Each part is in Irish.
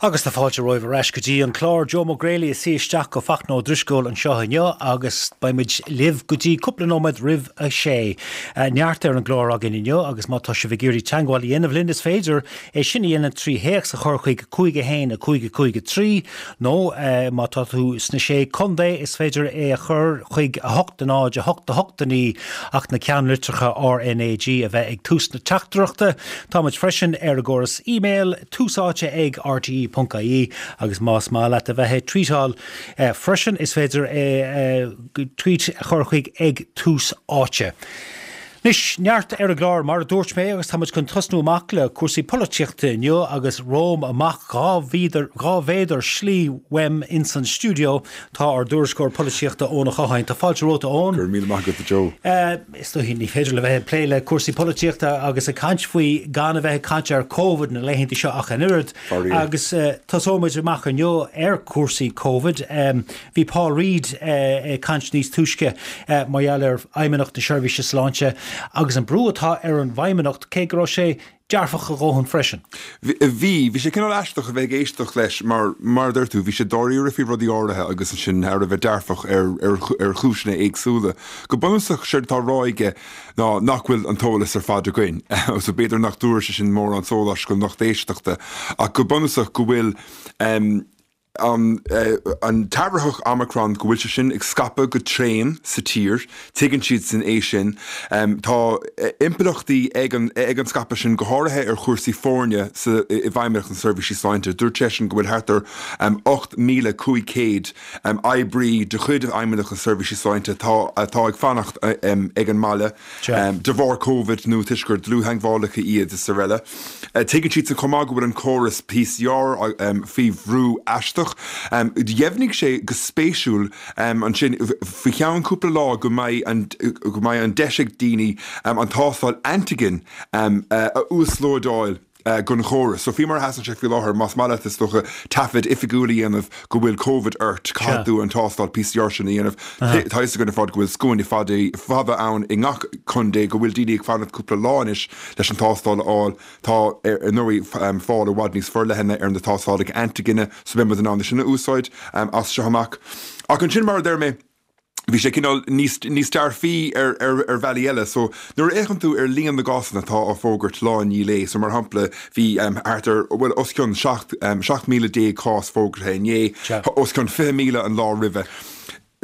Agus tá fáilte romhaibh ar ais go dtí an clár. Joe Mac Greally ag suí isteach do Fachtna Ó Drisceoil anseo inniu agus beidh muid libh go dtí cúpla nóiméad roimh a sé. Neart ar an gclár againn inniu agus má tá sibh ag iarraidh teagmháil a dhéanamh linn is féidir é sin a dhéanamh trí théacs a chur chuig 5 1 5 5 3 nó má tá tú sna Sé Contae is féidir é a chur chuig 8 0 8 8 9 ach na ceannlitreacha RNAG a bheith ag tús na teachtaireachta. Tá muid freisin ar an gcóras email. Tús Áite ag rte.ie agus más maith leat a bheith ag tweetáil freisin is féidir tweet a chur chuig ag Tús Áite. Anois, neart ar an gclár mar a dúirt mé agus tá muid chun tosnú amach le cúrsaí polaitíochta inniu agus romham amach 2 mhéadar slí uaim ins an stiúideo tá ár dtuairisceoir polaitíochta Eoin Ó Catháin. Tá fáilte romhat a Eoin. Go raibh míle maith agat a Joe. Is dóichí ní féidir le bheith ag plé le cúrsaí polaitíochta agus ag caint faoi gan a bheith ag caint ar Covid na laethanta seo ach an oiread. Agus tosóidh muid amach inniu ar chúrsaí Covid. Bhí Paul Reid ag caint níos túisce mar gheall ar Fheidhmeannacht na Seirbhíse Sláinte agus an brú atá ar an bhFeidhmeannacht cé go raibh sé dearfach a dhóthain freisin. Bhí. Bhí sé cineál aisteach a bheith ag éisteacht leis mar, mar a deir tú, bhí sé dáiríre faoi rudaí áirithe agus ansin thar a bheith dearfach ar, ar, ar chúiseanna éagsúla. Go bunúsach, séard atá á rá aige ná nach bhfuil an t-eolas ar fad againn. So b'fhéidir nach dtabharfaidh sé sin mórán sóláis don lucht éisteachta ach go bunúsach go bhfuil, an t-athraitheach Omicron, go bhfuil sé sin ag scaipeadh go tréan sa tír, tuigeann siadsan é sin. Tá impleachtaí ag an ag an scaipeadh sin, go háirithe ar chúrsaí foirne sa i bhFeidhmeannacht na Seirbhísí Sláinte. Dúirt seisean go bhfuil thart ar 8,500 oibrí de chuid Fheidhmeannacht na Seirbhísí Sláinte atá atá ag fanacht ag an mbaile de bharr Covid nó toisc gur dlúth-theagmhálaithe iad is araile. Tuigeann siadsan chomh maith go bhfuil an córas PCR faoi bhrú aisteach. Dheimhnigh sé go spéisiúil ansin faoi cheann cúpla lá go mbeidh an go mbeidh an deis ag daoine an tástáil antigen a uaslódáil don chóras. So faoi mar a sheasann sé faoi láthair, más maith leat is dócha taifead oifigiúil a dhéanamh go bhfuil Covid ort, caithfidh tú an tástáil PCR sin a dhéanamh. Tá a fhios againn ar fad go bhfuil scuaine fada ann i ngach contae, go bhfuil daoine ag fanacht cúpla lá anois leis an tástáil a fháil. Tá, ar ndóigh, fáil i bhfad níos forleithne ar na tástálacha antigine so beidh muid in ann é sin a úsáid as seo amach. Ach ansin, mar a deir mé, bhí sé cineál níos, níos dearfaí ar, ar, ar bhealaí eile. So, nuair a fhéachann tú ar líon na gcásanna atá á bhfógairt lá i ndiaidh lae, so mar shampla, bhí thart ar, bhuel, os cionn 17, 17,000 cás fógartha inné, os cionn 20,000 an lá roimhe.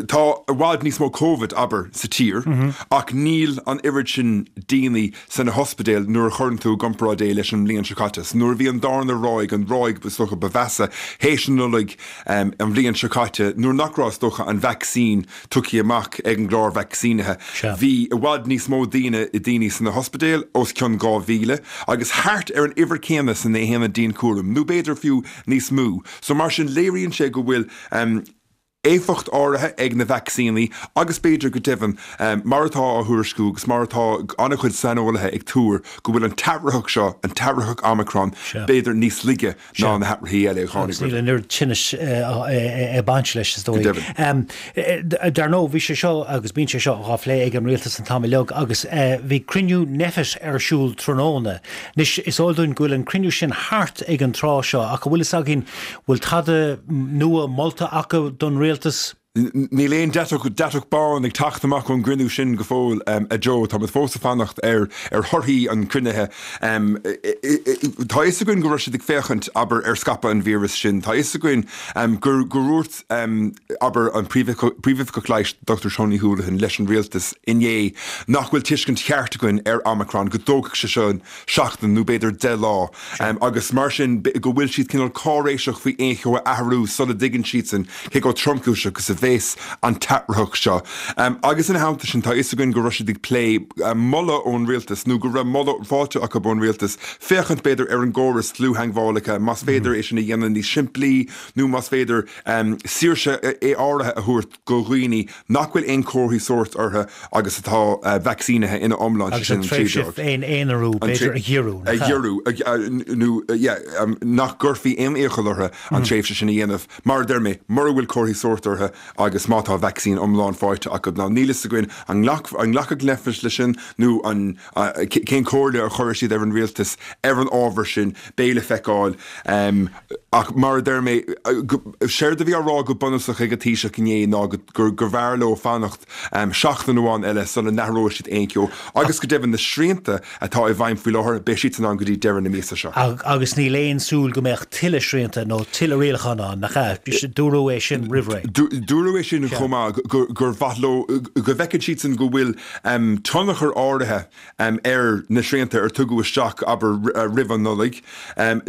Tá i bhfad níos mó Covid, abair, sa tír ach níl an oiread sin daoine sna hospidéil nuair a chuireann tú i gcomparáid é leis an mbliain seo caite. So nuair a bhí an darna ráig, an ráig is dócha ba mheasa théis an Nollaig an bhliain seo caite, nuair nach raibh is dócha an vacsaín tugtha amach ag an gclár vacsaínithe, bhí i bhfad níos mó daoine daoine sna hospidéil, os cionn 2,000, agus thart ar an uimhir céanna sna haonaid dianchúraim, nó b'fhéidir fiú níos mó. So mar sin léiríonn sé go bhfuil éifeacht áirithe ag na vacsaíní agus b'fhéidir go deimhin, mar atá á thuairisciú agus mar atá an-chuid saineolaithe ag tuar, go bhfuil an t-athraitheach seo, an t-athraitheach Omicron, b'fhéidir níos laige ná na hathraithí eile a tháinig roimhe. Agus níl an oiread tinnis ag baint leis, is dóigh. Go deimhin. Dar ndóigh, bhí sé seo agus bíonn sé seo á phlé ag an rialtas an t-am uilig agus bhí cruinniú Nphet ar siúl tráthnóna. Anois, is eol dúinn go bhfuil an cruinniú sin thart ag an tráth seo ach an bhfuil fhios againn Bhfuil tada nua molta acu don rialtas? Níl aon deatach, deatach bán ag teacht amach ón gcruinniú sin go fóill, a Joe. Tá muid fós ag fanacht ar ar thorthaí an chruinnithe. Tá a fhios againn go raibh siad ag féachaint, abair, ar scaipeadh an víreas sin. Tá a fhios againn gur gur dhúirt, abair, an Príomhoifigeach Leighis, Dr Tony Holohan, leis an rialtas inné nach bhfuil tuiscint cheart againn ar Omicron, go dtógfaidh sé seo seachtain nó b'fhéidir 10 lá agus mar sin go bhfuil siad cineál cáiréiseach faoi aon cheo a athrú sula dtuigeann siadsan cé chomh tromchúiseach is a bheas an t-athraitheach seo. Agus ina theannta sin tá a fhios againn go raibh siad ag plé moladh ón rialtas nó go raibh moladh faighte acu ón rialtas féachaint b'fhéidir ar an gcóras dlúth-theagmhálacha más féidir é sin a dhéanamh níos simplí nó más féidir saoirse áirithe a thabhairt do dhaoine nach bhfuil aon chomharthaí sóirt orthu agus atá vacsaínithe ina iomlán, sé sin an tréimhse. Agus an tréimhse féin-aonarú, b'fhéidir, a ghiorrú, nach ea? A ghiorrú, nó yeah, nach gcuirfí aon iachall orthu an tréimhse sin a dhéanamh. Mar a deir mé, mura bhfuil comharthaí sóirt orthu agus má tá vacsaín iomlán faighte acu. Now níl fhios againn an nglacfaidh Nphet leis sin nó an cén chomhairle a chuirfidh siad ar an rialtas ar an ábhar sin, beidh le feiceáil. Ach mar a deir mé, séard a bhí á rá go bunúsach ag an Taoiseach inné ná gurbh fhearr leo fanacht seachtain amháin eile sula n-athróidh siad aon cheo agus go deimhin na srianta atá i bhfeidhm faoi láthair, beidh siadsan ann go dtí deireadh na míosa seo. Agus níl aon súil go mbeadh tuilleadh srianta nó tuilleadh rialachán ann, nach ea? Dúradh é sin roimh ré. Dúradh é sin chomh maith, gur mhaith leo, go bhfeiceann siadsan go bhfuil tionchar áirithe ar na srianta ar tugadh isteach, abair, roimh an Nollaig.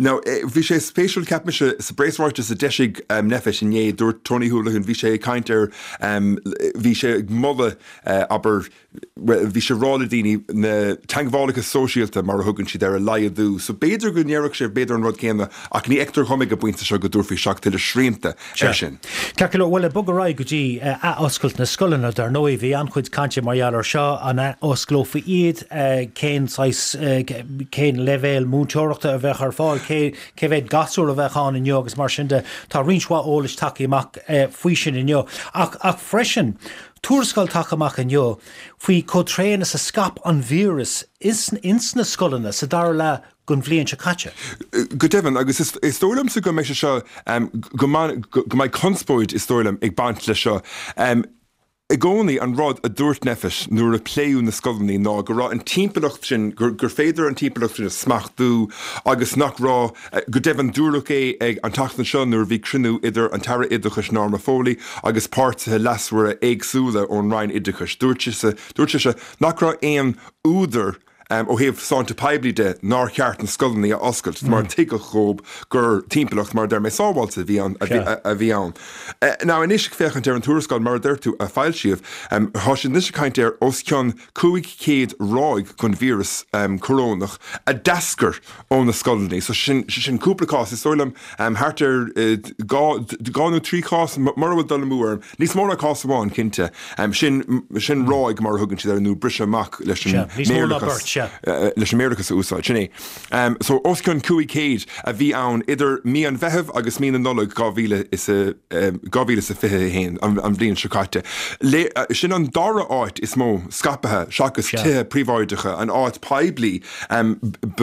Now, bhí sé spéisiúil, cheap mise, sa bpreasráiteas a d'eisigh Nphet inné, dúirt Tony Holohan, bhí sé ag caint ar, bhí sé ag moladh, abair, bhuel, bhí sé ag rá le daoine na teagmhálacha sóisialta, mar a thugann siad air, a laghdú. So b'fhéidir go ndéarfadh sé b'fhéidir an rud céanna ach ní fheictear dhom ag an bpointe seo go dtabharfaí isteach tuilleadh srianta air sin. Ceart go leor, bhuel, ag bogadh ar aghaidh go dtí athoscailt na scoileanna, dar ndóigh, bhí an-chuid cainte mar gheall air seo, an athosclófaí iad, cén saghas, cén leibhéal múinteoireachta a bheadh ar fáil, cé, cé mhéad gasúr a bheadh ann inniu agus mar sin de. Tá roinnt mhaith eolais tagtha amach faoi sin inniu. Ach, ach freisin, tuarascáil tagtha amach inniu faoi chomh tréan is a scaip an víreas ins, ins na scoileanna sa dara leath den bhliain seo caite. Go deimhin, agus is dóigh liomsa go mbeidh sé seo, go mbeidh conspóid, is dóigh liom, ag baint leis seo. I gcónaí, an rud a dúirt Nphet nuair a pléadh na scoileanna ná go raibh an timpeallacht sin, gur féidir an timpeallacht sin a smachtú agus nach raibh, go deimhin, dúradh é ag an tseachtain seo nuair a bhí cruinniú idir an tAire Oideachais Norma Foley agus páirtithe leasmhara éagsúla ón Roinn Oideachais, dúirt sise, dúirt sise nach raibh aon údar, ó thaobh sláinte poiblí de, nár cheart na scoileanna a oscailt mar tuigeadh dhóibh gur timpeallacht, mar a deir mé, sábháilte a bhí ann, a bhí ann. Now anois ag féachaint ar an tuarascáil, mar a deir tú, a foilsíodh, tá siad anois ag caint ar os cionn 500 ráig den víreas corónach a d'eascair ó na scoileanna. So sin, sin cúpla cás, is dóigh liom thart ar 2 nó 3 chás, mura bhfuil dul amú orm, Níos mó ná cás amháin, cinnte. Sin, sin ráig, mar a thugann siad air, nó briseadh amach leis an mBéarlachas, leis an mBéarlachas a úsáid. Sin é. So, os cionn 500 a bhí ann idir mí an Mheithimh agus mí na Nollag 2021, an bhliain seo caite. Sin an dara áit is mó scaipthe seachas tithe príobháideacha, an áit poiblí ba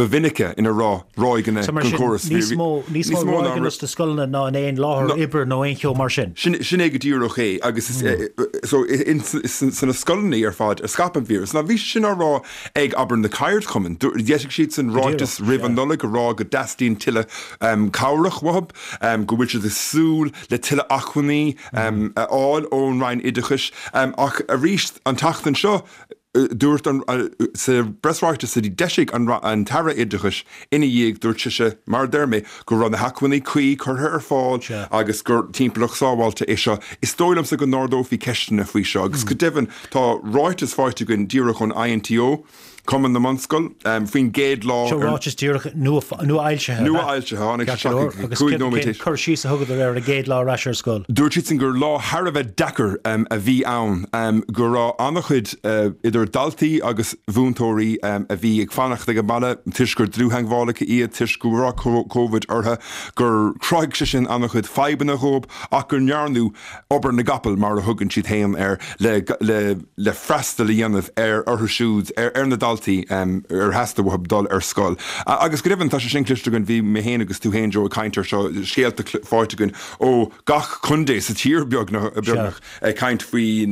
mhinice ina raibh ráigeanna den chóras. Níos mó, níos mó ráigeanna sna scoileanna ná in aon láthair oibre nó aon cheo mar sin. Sin é go díreach é agus so sna scoileanna ar fad a scaip an víreas. Now bhí sé sin á rá ag, abair, na ceardchumainn. D'eisigh siadsan ráiteas roimh an Nollaig ag rá go dteastaíonn tuilleadh cabhrach uathu, go bhfuil siad ag súil le tuilleadh acmhainní a fháil ón Roinn Oideachais. Ach arís an tseachtain seo, Dúirt an, sa bpreasráiteas a d'eisigh an tAire Oideachais ina dhiaidh, dúirt sise, mar a deir mé, go raibh na hacmhainní cuí curtha ar fáil agus gur timpeallacht sábháilte é seo. Is dóigh liomsa go n-ardófaí ceisteanna faoi seo agus go deimhin tá ráiteas faighte againn díreach ón INTO, Cumann na mBunscol, faoin gcéad lá Seo ráiteas díreach nua-fhoilsithe, ab ea? Nua-fhoilsithe, tháinig sé isteach ag 5 nóiméad Agus cén cur síos a thugadar ar an gcéad lá ar ais ar scoil? Dúirt siadsan gur lá thar a bheith deacair a bhí ann, go raibh an-chuid idir daltaí agus mhúinteoirí a bhí ag fanacht ag an mbaile toisc gur dlúth-theagmhálaithe iad, toisc go raibh Covid orthu, gur chruthaigh sé sin an-chuid fadhbanna dhóibh ach go ndearnadh obair na gcapall, mar a thugann siad féin air, le freastal a dhéanamh ar orthu siúd, ar na daltaí ar theastaigh uathu dul ar scoil. Agus go deimhin, tá sé sin cloiste againn, bhí mé féin agus tú féin, Joe, ag caint air seo, scéalta faighte againn ó gach contae sa tír, beagnach, ag caint faoi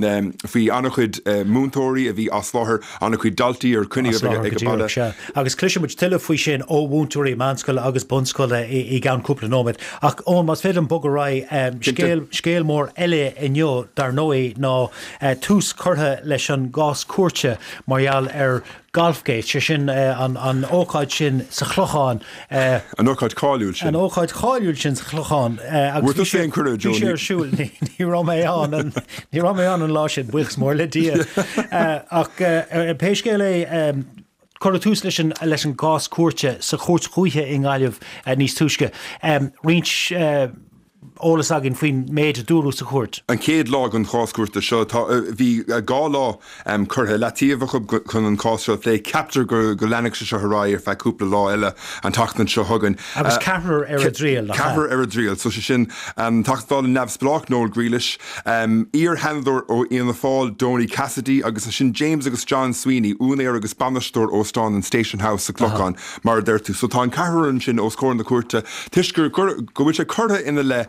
faoi an-chuid múinteoirí a bhí as láthair, an-chuid daltaí ar coinníodh ag an baile. Agus cloisfidh muid tuilleadh faoi sin ó mhúinteoirí meánscoile agus bunscoile i gceann cúpla nóiméad. Ach Eoin, más féidir liom bogadh ar aghaidh, scéal, scéal mór eile inniu, dar ndóigh, ná tús curtha leis an gcás cúirte mar gheall ar Golfgate, sé sin an ócáid sin sa Chlochán. An ócáid cháiliúil sin. An ócáid cháiliúil sin sa Chlochán. Bhfuair tusa aon cuireadh, Joe? Bhí sé ar siúl, ní raibh mé ann, ní raibh mé ann an lá sin, buíochas mór le Dia. Ach pé scéal é, Cuireadh tús leis an leis an gcás cúirte sa Chúirt Dhúiche i nGaillimh níos túisce. Roinnt. eolas againn faoin méid a dúradh sa chúirt. An chéad lá den chás cúirte seo, tá, bhí 2 lá curtha i leataobh acu chun an cás seo a phlé. Ceaptar go leanfaidh sé seo ar aghaidh ar feadh cúpla lá eile an tseachtain seo chugainn. Agus ceathrar ar a dtriail, nach ea? Ceathrar ar a dtriail. So sé sin an Teachta Dála neamhspleách Noel Grealish, iar-Sheanadóir ó Fhianna Fáil Donie Cassidy agus ansin James agus John Sweeney, úinéir agus bainisteoir óstán an Station House sa Clochán, mar a deir tú. So tá an ceathrar ansin os comhair na cúirte toisc gur, go bhfuil sé curtha ina leith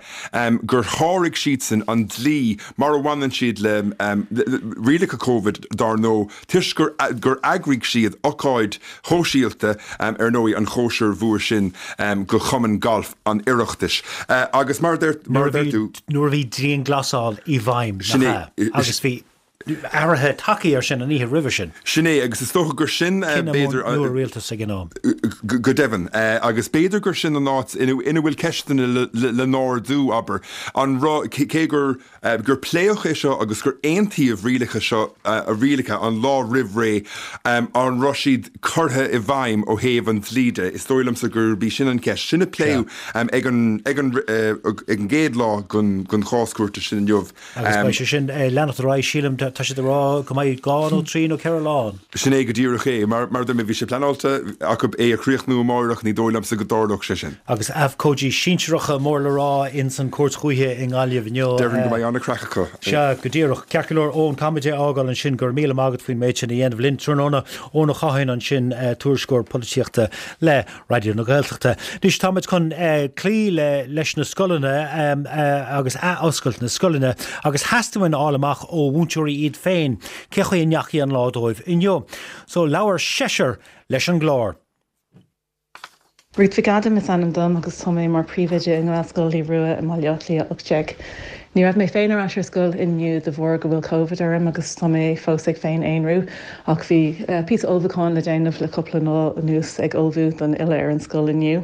gur sháraigh siadsan an dlí mar a bhaineann siad le rialacha Covid dár ndóigh toisc gur, gur eagraigh siad ocáid shóisialta ar ndóigh an chóisir mhór sin do Chumann Gailf an Oireachtais. Agus mar a deir, mar a deir tú. Nuair a bhí dianghlasáil i bhfeidhm, nach ea? Agus bhí athruithe tagtha air sin an oíche roimhe sin. Sin é, agus is dócha gur sin, b'fhéidir. Cinneadh nua rialtais ag an am. Go deimhin. Agus b'fhéidir gur sin an áit ina bhfuil ceisteanna le n-ardú, abair. An raibh, cé gur gur pléadh é seo agus gur aontaíodh rialacha seo, rialacha an lá roimh ré, an raibh siad curtha i bhfeidhm ó thaobh an dlí de? Is dóigh liomsa gurb í sin an cheist. Sin a pléadh ag an ag an ag an gcéad lá den chás cúirte sin inniu. Agus beidh sé sin ag leanacht ar aghaidh, sílim, tá siad ag rá go mbeidh 2 nó 3 nó 4 lá ann. Sin é go díreach é. Mar a dúirt mé, bhí sé pleanáilte acu é a chríochnú amáireach, ní dóigh liomsa go dtarlódh sé sin. Agus abhcóidí sinsearacha mór le rá ins an Chúirt Dhúiche i nGaillimh inniu. Déarfainn go mbeidh an-chraic acu. Sea, go díreach. Ceart go leor, Eoin, caithfimid é a fhágáil ansin. Go raibh míle maith agat faoin méid sin a dhéanamh linn tráthnóna. Eoin Ó Catháin ansin, tuairisceoir polaitíochta le Raidió na Gaeltachta. Anois táimid chun cloí le leis na scoileanna agus ath-oscailt na scoileanna agus theastaigh uainn a fháil amach ó mhúinteoirí iad féin cé chaoi a ndeachaigh an lá dóibh inniu. So labhair seisear leis an gclár. Ruth Mhic Adaim is ainm dom agus tá mé mar Príomhoide i nGaelscoil Naomh Rua i mBaile Átha Cliath 18. Ní raibh mé féin ar ais ar scoil inniu de bharr go bhfuil Covid orm agus tá mé fós ag féin-aonrú ach bhí píosa ullmhúcháin le déanamh le cúpla lá anuas ag ullmhú don fhilleadh ar an scoil inniu.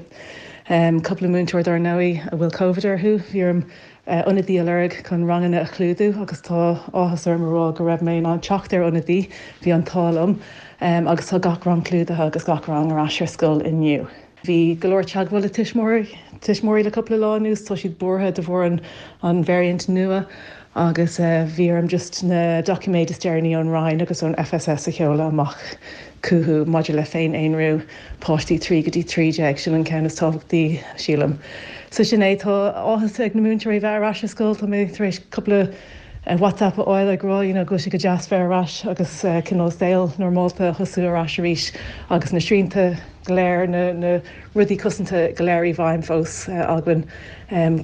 Cúpla múinteoir dár ndóigh a bhfuil Covid orthu, bhí orm ionadaí a lorg chun ranganna a chlúdú agus tá áthas orm a rá go raibh mé in ann teacht ar ionadaí, bhí an t-ádh liom agus tá gach rang clúdaithe agus gach rang ar ais ar scoil inniu. Bhí go leor teagmháil le tuismitheoirí tuismitheoirí le cúpla lá anuas, tá siad buartha de bharr an an variant nua agus bhí orm just na doiciméid is deireanaí ón Roinn agus ón FSS a sheoladh amach chucu maidir le féin-aonrú páistí 3 go dtí 13, sin an ceann is tábhachtaí sílim. So sin é, tá áthas ag na múinteoirí bheith ar ais ar scoil, tá mé tar éis cúpla WhatsApp a fháil ag rá you know go bhfuil sé go deas bheith ar ais agus cineál saol normálta a thosú ar ais arís agus na srianta go léir, na rudaí cosanta go léir i bhfeidhm fós againn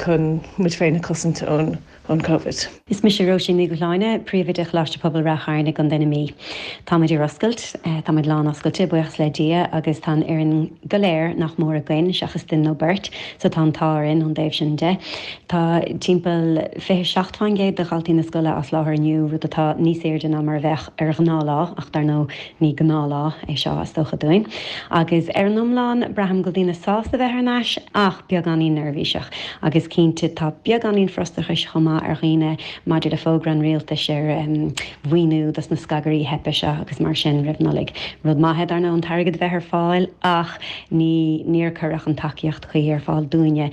chun muid féin a chosaint ón Covid. Is mise Róisín Ní Dhubhshláine, Príomhoide Choláiste Pobail Ráth Chairn i gContae na Mí. Táimid ar oscailt, táimid lán-oscailte, buíochas le Dia, agus tá an fhoireann go léir nach mór againn, seachas duine nó beirt, so tá an t-ádh orainn ón dtaobh sin de. Tá timpeall 27% de dhaltaí na scoile as láthair inniu, rud atá níos airde ná mar a bheadh ar ghnáthlá, ach dar ndóigh Ní gnáthlá é seo, is dócha dúinn. Agus ar an iomlán, braithim go bhfuil daoine sásta bheith thar n-ais, ach beagáinín neirbhíseach. Agus cinnte, tá beagáinín frustrachais chomh maith ar dhaoine maidir le fógra an rialtais ar mhaoiniú dos na scagairí theipthe seo agus mar sin roimh Nollaig. Rud maith é, dar ndóigh, an t-airgead a bheith ar fáil, ach ní níor cuireadh an tacaíocht chuí ar fáil dúinne.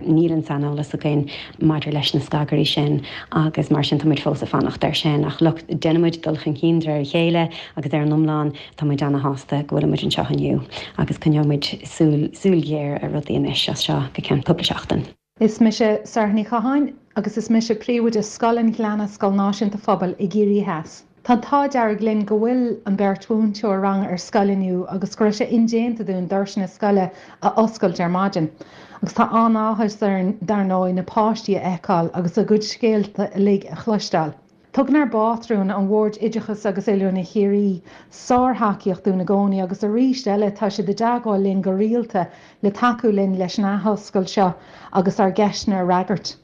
Níl an saineolas againn maidir leis na scagairí sin agus mar sin tá muid fós ag fanacht air sin. Ach look, déanann muid dul chun cinn de réir a chéile agus ar an iomlán tá muid ana-shásta go bhfuil muid anseo inniu agus coinneoidh muid súil, súil ghéar ar rudaí anois as seo go ceann cúpla seachtain. Is mise Sarah Ní Chatháin agus is mise Príomhoide Scoil an Ghleanna, Scoil Náisiúnta Phobail i gCiarraí Theas. Tá an t-ádh dearg linn go bhfuil an beirt mhúinteoir ranga ar scoil inniu agus go raibh sé indéanta dúinn doirse na scoile a oscailt ar maidin. Agus tá an-áthas orainn dar ndóigh na páistí a fheiceáil agus a gcuid scéalta uilig a chloisteáil. Tugann ár bpátrún, an Bhord Oideachais agus Oiliúna Chiarraí, sár-thacaíocht dúinn i gcónaí agus arís eile tá siad i dteagmháil linn go rialta le tacú linn leis an athoscailt seo agus ár gceisteanna a fhreagairt.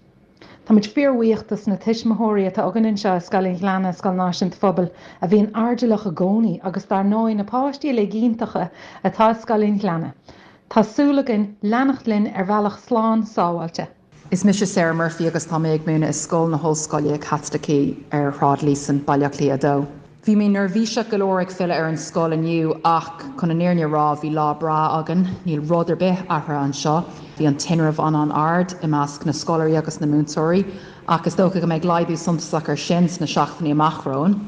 Táimid fíorbhuíoch dos na tuismitheoirí atá againn anseo i Scoil an Ghleanna, Scoil Náisiúnta Phobail, a bhíonn airdeallach i gcónaí agus dar ndóigh na páistí uilig iontacha atá i Scoil an Ghleanna. Tá súil againn leanacht linn ar bhealach slán sábháilte. Is mise Sarah Murphy agus tá mé ag múineadh i Scoil na hOllscoile Caitlicí ar Shráid Líosain, Baile Átha Cliath 2. Bhí mé neirbhíseach go leor ag filleadh ar an scoil inniu ach chun an fhírinne a rá bhí lá breá againn. Níl rud ar bith athraithe anseo. Bhí an tinreamh an-an-ard i measc na scoláirí agus na múinteoirí ach is dócha go mbeidh laghdú suntasach air sin sna seachtainí amach romhainn.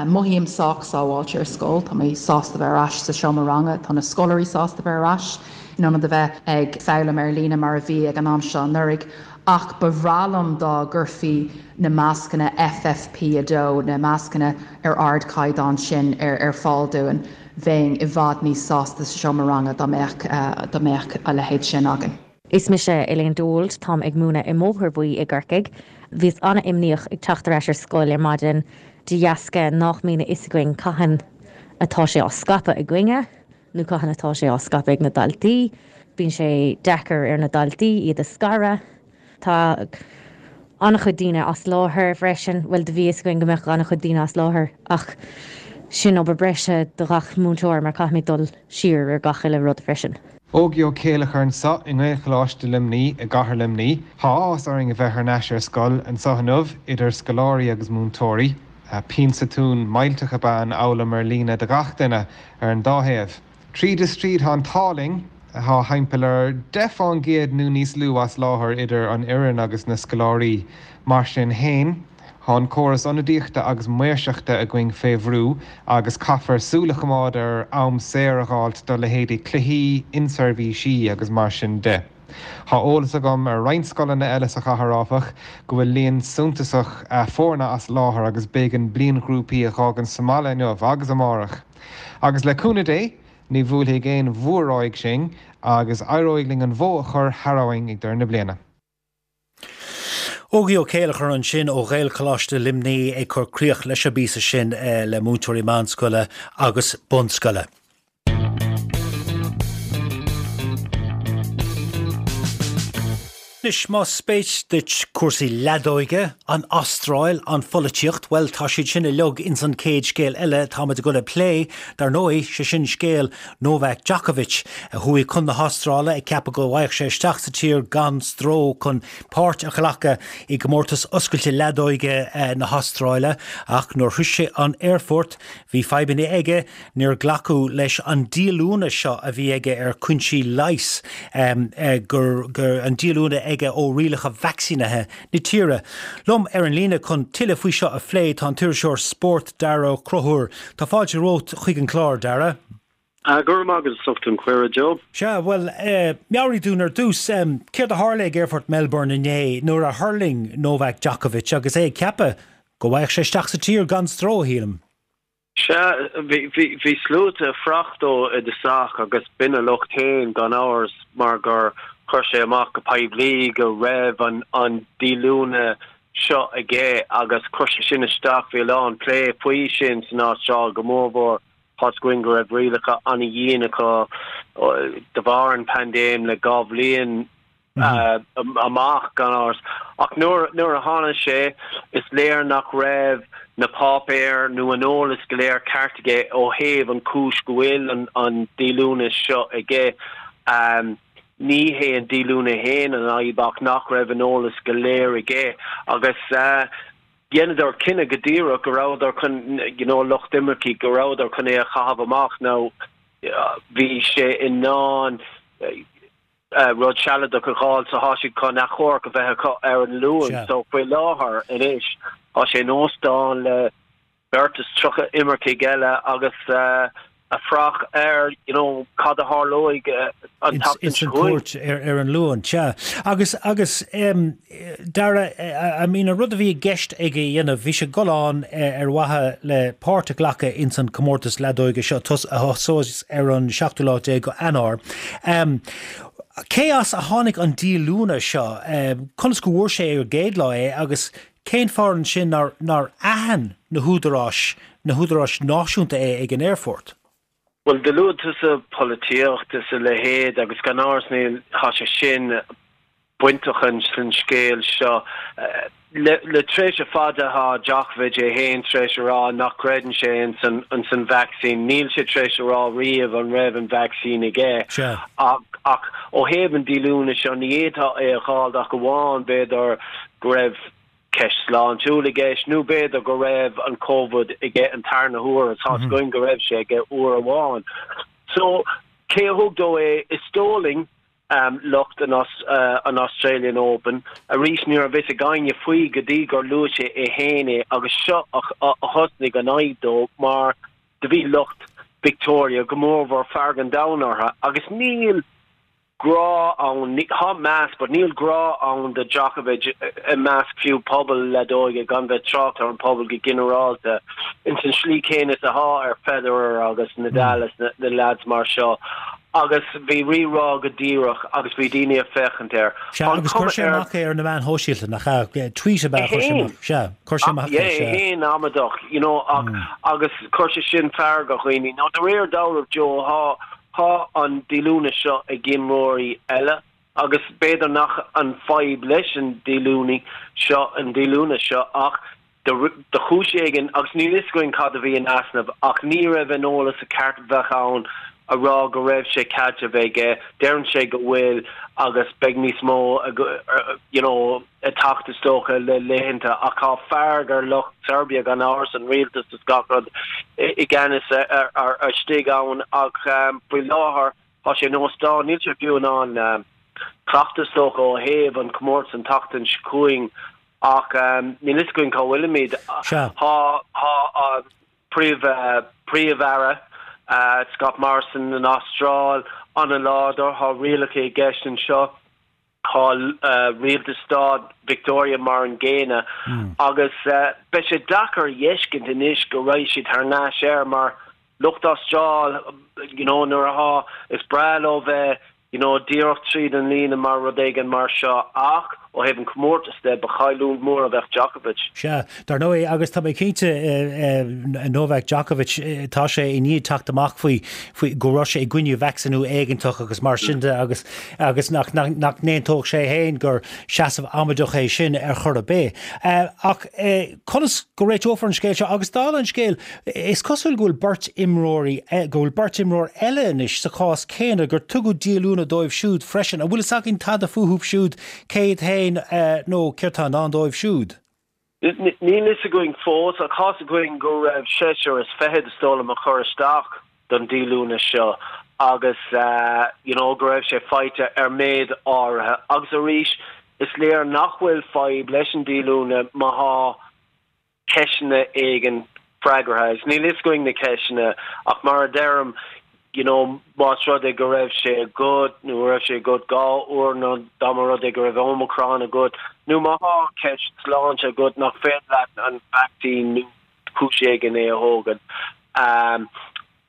Mothaím sách sábháilte ar scoil. Tá mé sásta bheith ar ais sa seomra ranga. Tá na scoláirí sásta bheith ar ais in ionad a bheith ag foghlaim ar líne mar a bhí ag an am seo anuraidh. Ach ba bhreá liom dá gcuirfí na mascanna FFP2, na mascanna ar ardchaighdeán sin, ar fáil dúinn. Bheinn i bhfad níos sásta sa seomra ranga dá mbeadh dá mbeadh a leithéid sin againn. Is mise Elaine Dold, táim ag múineadh i mBóthar Buí i gCorcaigh. Bhíos an-imníoch ag teacht ar ais ar scoil ar maidin de dheasca nách mbíonn a fhios againn cathain atá sé á scaipeadh againne. nó cathain atá sé á scaipeadh ag na daltaí. Bíonn sé deacair ar na daltaí iad a scaradh. Tá an-chuid daoine as láthair freisin. Bhuel, do bhí fhios againn go mbeadh an-chuid daoine as láthair ach sin obair breise do ghach múinteoir mar caithfimid dul siar ar gach uile rud freisin. Ógie Ó Céileachair anso i nGaelcholáiste Luimní i gcathair Luimní. Tá áthas orainn a bheith thar n-ais ar scoil anso inniu, idir scoláirí agus múinteoirí. Pionsa tún millteach ab ea an fhoghlaim ar líne do ghach duine ar an dá thaobh. Tríd is tríd tá an t-ádh linn, tá thimpeall ar 10 fán gcéad nó níos lú as láthair idir an fhoireann agus na scoláirí. Mar sin fhéin, tá an córas ionadaíochta agus maoirseachta againn fé bhrú agus caithfear súil a choimeád ar am saor a dh'fháilt do leithéidí cluichí, inseirbhísí agus mar sin de. Tá eolas agam ar roinnt scoileanna eile sa chathair, áfach, go bhfuil líon suntasach foirne as láthair agus b'éigean bliainghrúpaí a dh'fhágaint sa mbaile inniu agus amárach. Agus le cúnamh Dé, ní bhuailfidh aon mhór-ráig sinn agus éireoidh linn an bhó a chur thar abhainn ag deireadh na bliana. Ógie Ó Céileachair ansin ó Ghaelcholáiste Luimní ag cur críoch leis an bpíosa sin le múinteoirí meánscoile agus bunscoile. Anois, más spéis duit cúrsaí leadóige, an Astráil, an pholaitíocht, bhuel, tá siad sin uilig ins an chéad scéal eile táimid ag dul a phlé, dar ndóigh, sé sin scéal Novak Djokovic, a chuaigh chun na hAstráile ag ceapadh go bhfaigheadh sé isteach sa tír gan stró chun páirt a ghlacadh i gcomórtas oscailte leadóige na hAstráile, ach nuair a shroich sé an aerfort, bhí fadhbanna aige, níor glacadh leis an díolúine seo a bhí aige ar chúinsí leighis, gur an díolúine aige ó rialacha vacsaínithe na tíre. Liom ar an líne chun tuilleadh faoi seo a phlé tá an t-iriseoir spóirt Dara Ó Conchúir. Tá fáilte romhat chuig an chlár, Dara. Go raibh maith agat as ucht an cuireadh, Joe. Sea, bhuel, meabhraigh dúinn ar dtús, céard a tharla ag Aerfort Melbourne inné nuair a thuirling Novak Djokovic agus é ag ceapadh go bhfaigheadh sé isteach sa tír gan stró, shílim. Sea, bhí sluaite ag fuireach dó i dtosach agus b'in a locht féin gan amhras mar gur chuir sé amach go poiblí go raibh an díolúine seo aige agus chuir sé sin isteach, bhí a lán plé faoi sin san Astráil go mórmhór tá's againn go raibh rialacha an-dhian acu de bharr an paindéim le 2 bhliain amach, gan amhras. Ach nuair nuair a tháinig sé, is léir nach raibh na páipéir nó an eolas go léir ceart aige ó thaobh an chúis go bhfuil an an díolúine seo aige. Ní hé an díolúine fhéin an fhadhb ach nach raibh an eolas go léir aige agus dheineadar cinneadh go díreach go rabhadar chun, you know, lucht imirce, go rabhadar chun é a chaitheamh amach. Now bhí sé in ann rud sealadach a dh'fháil so thá siad chun achomharc a bheith acu ar an Luan so faoi láthair anois thá sé in óstán le beirt is 30 imircigh eile agus ag fuireach ar you know cad a tharlóidh an tseachtain seo chugainn. Ins an chúirt ar an Luan, sea. Agus agus Dara, I mean an rud a bhí i gceist aige a dhéanamh, bhí sé ag dul ann ar mhaithe le páirt a ghlacadh ins an comórtas leadóige seo a thosós ar an seachtú lá déag go Eanáir. Cé as a tháinig an díolúine seo? Conas go bhfuair sé ar an gcéad lá é agus cén fáth ansin nár nár aithin na húdaráis, na húdaráis náisiúnta é ag an aerfort? Bhuel, do luaigh tusa polaitíocht is a leithéid agus gan amhras níl, thá sé sin bainteach san scéal seo. Le tréimhse fada thá Djokovic é fhéin tar éis a rá nach gcreideann sé ins an vacsaín. Níl sé tar éis a rá riamh an raibh an vacsaín aige. Ach ó thaobh an díolúine seo ní fhéadfá é a dh'fháil ach amháin b'fhéidir go raibh. ceist sláintiúil i gceist nó b'fhéidir go raibh an Covid aige an tarna huair agus tá's againn go raibh sé aige uair amháin. So, cé a thug dó é? Is dóigh linn lucht an an Australian Open. Arís ní raibh fhios ag éinne faoi go dtí gur luaigh sé é féin é agus seo a thosnaigh an fhadhb dó mar do bhí lucht Victoria go mórmhór fearg an domhain orthu agus níl grá ann, tá meas but níl grá ann do Djokovic i measc fiú pobal leadóige gan bheith trácht ar an pobal go ginearálta ins an slí céanna is athá ar Federer agus Nadal is na leaids mar seo agus bhí rí-rá go díreach agus bhí daoine ag féachaint air. Sea, agus chuir sé amach é ar na meáin shóisialta, nach ea? Tweet ab ea a chuir sé amach. Sea, chuir sé amach é, sea. É féin amaideach, you know, ach agus chuir sé sin fearg ar dhaoine. Now de réir dealraimh, Joe, thá Tá an díolúine seo ag imreoirí eile agus b'fhéidir nach an fadhb leis an díolúine seo an díolúine seo ach de chúis éigin, agus níl fhios againn cad a bhí in easnamh, ach ní raibh an eolas a ceart a bheadh ann a rá go raibh sé cead a bheith aige, deireann sé go bhfuil agus beidh níos mó you know ag teacht is dócha le laethanta ach tá fearg ar lucht Serbia gan amhras, an rialtas is gach rud i gceannas ar istigh ann ach faoi láthair tá sé in óstán, níl sé fiú in ann cleachtadh is dócha ó thaobh an comórtas an tseachtain seo chugainn ach níl fhios againn cá bhfuilimid. Sea. Tá an Príomh-Aire Scott Morrison an Astráil an-láidir, tá rialacha i gceist anseo. Tá rialtas stát Victoria mar an gcéanna agus beidh sé deacair a fheiscint anois go raghaidh siad thar n-ais air mar lucht Astráil you know nuair athá, is breá leo bheith you know díreach tríd an líne mar rud éigin mar seo ach ó thaobh an comórtas de ba chailliúint mór a bheadh Djokovic. Sea, dar ndóigh, agus tá mé cinnte, Novak Djokovic, tá sé i ndiaidh teacht amach faoi, faoi, go raibh sé i gcoinne vacsaíniú éigeantach agus mar sin de agus, agus nach, nach, nach n-aontódh sé féin gur seasamh amaideach é sin ar chor ar bith. Ach conas go réiteofar an scéal seo? Agus dála an scéil, is cosúil go bhfuil beirt imreoirí, go bhfuil beirt imreoir eile anois sa chás céanna, gur tugadh díolúine dóibh siúd freisin. An bhfuil fhios againn tada fúthu siúd, cé hiad féin nó céard tá i ndán dóibh siúd? Níl fhios againn fós, ach tá's againn go raibh seisear is fichead, is dóigh liom, a chuir isteach don díolúine seo agus you know go raibh sé faighte ar méid áirithe. Agus arís, is léir nach bhfuil fadhb leis an díolúine má thá ceisteanna éigin freagartha agus níl fhios againn na ceisteanna ach mar a deirim you know más rud é go raibh sé agat nó go raibh sé agat 2 uair nó dá mba rud é go raibh Omicron agat nó má thá ceist sláinte agat nach féidir leat an vacsaín nó cúis éigin é a thógaint. Um,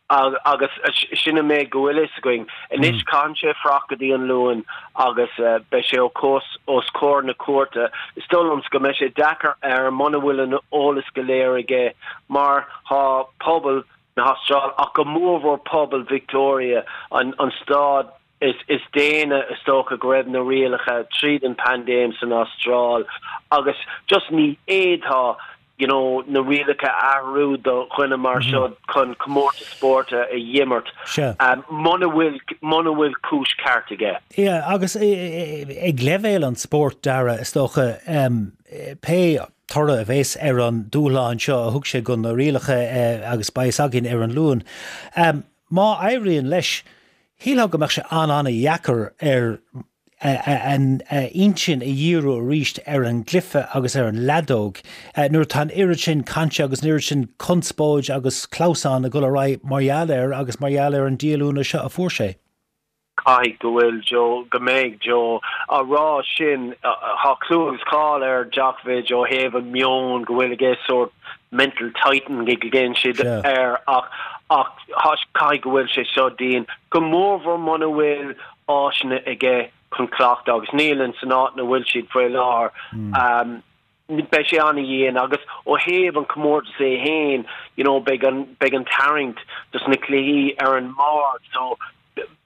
Agus sin an méid go bhfuil fhios againn. Anois caitheann sé fuireach go dtí an Luan agus beidh sé os comhair na cúirte. Is dóigh liomsa go mbeidh sé deacair air muna bhfuil an eolas go léir aige mar thá pobal na hAstráile ach go mórmhór pobal Victoria, an stát is déine is dócha go raibh na rialacha tríd an paindéim san Astráil agus just ní fhéadfá you know na rialacha a athrú do dhuine mar seo chun comórtas spóirt a dh'imirt muna bhfuil muna bhfuil cúis ceart aige. Yeah agus ag leibhéal an spóirt Dara is dócha pé toradh a bheas ar an dúshlán seo a thug sé do na rialacha agus beidh fhios againn ar an Luan má éiríonn leis Shílfeá go mbeadh sé an-an-dheacair air a intinn a dhíriú arís ar an gcluiche agus ar an leadóg nuair atá an oiread sin cainte agus an oiread sin conspóid agus clamhsán ag dul ar aghaidh mar gheall air agus mar gheall ar an díolúine seo a fuair sé. Caithfidh go bhfuil Joe, go mbeidh Joe á rá sin. Tá clú agus cáil ar Djokovic ó thaobh an meon go bhfuil aige sórt mental titan go gcéann siad air ach ach caithfidh go bhfuil sé seo dian, go mórmhór muna bhfuil áiseanna aige chun cleachtadh agus níl in san áit ina bhfuil siad faoi láthair. Beidh sé an-dhian agus ó thaobh an comórtas é féin you know beidh an beidh an tarraingt dos na cluichí ar an mbord so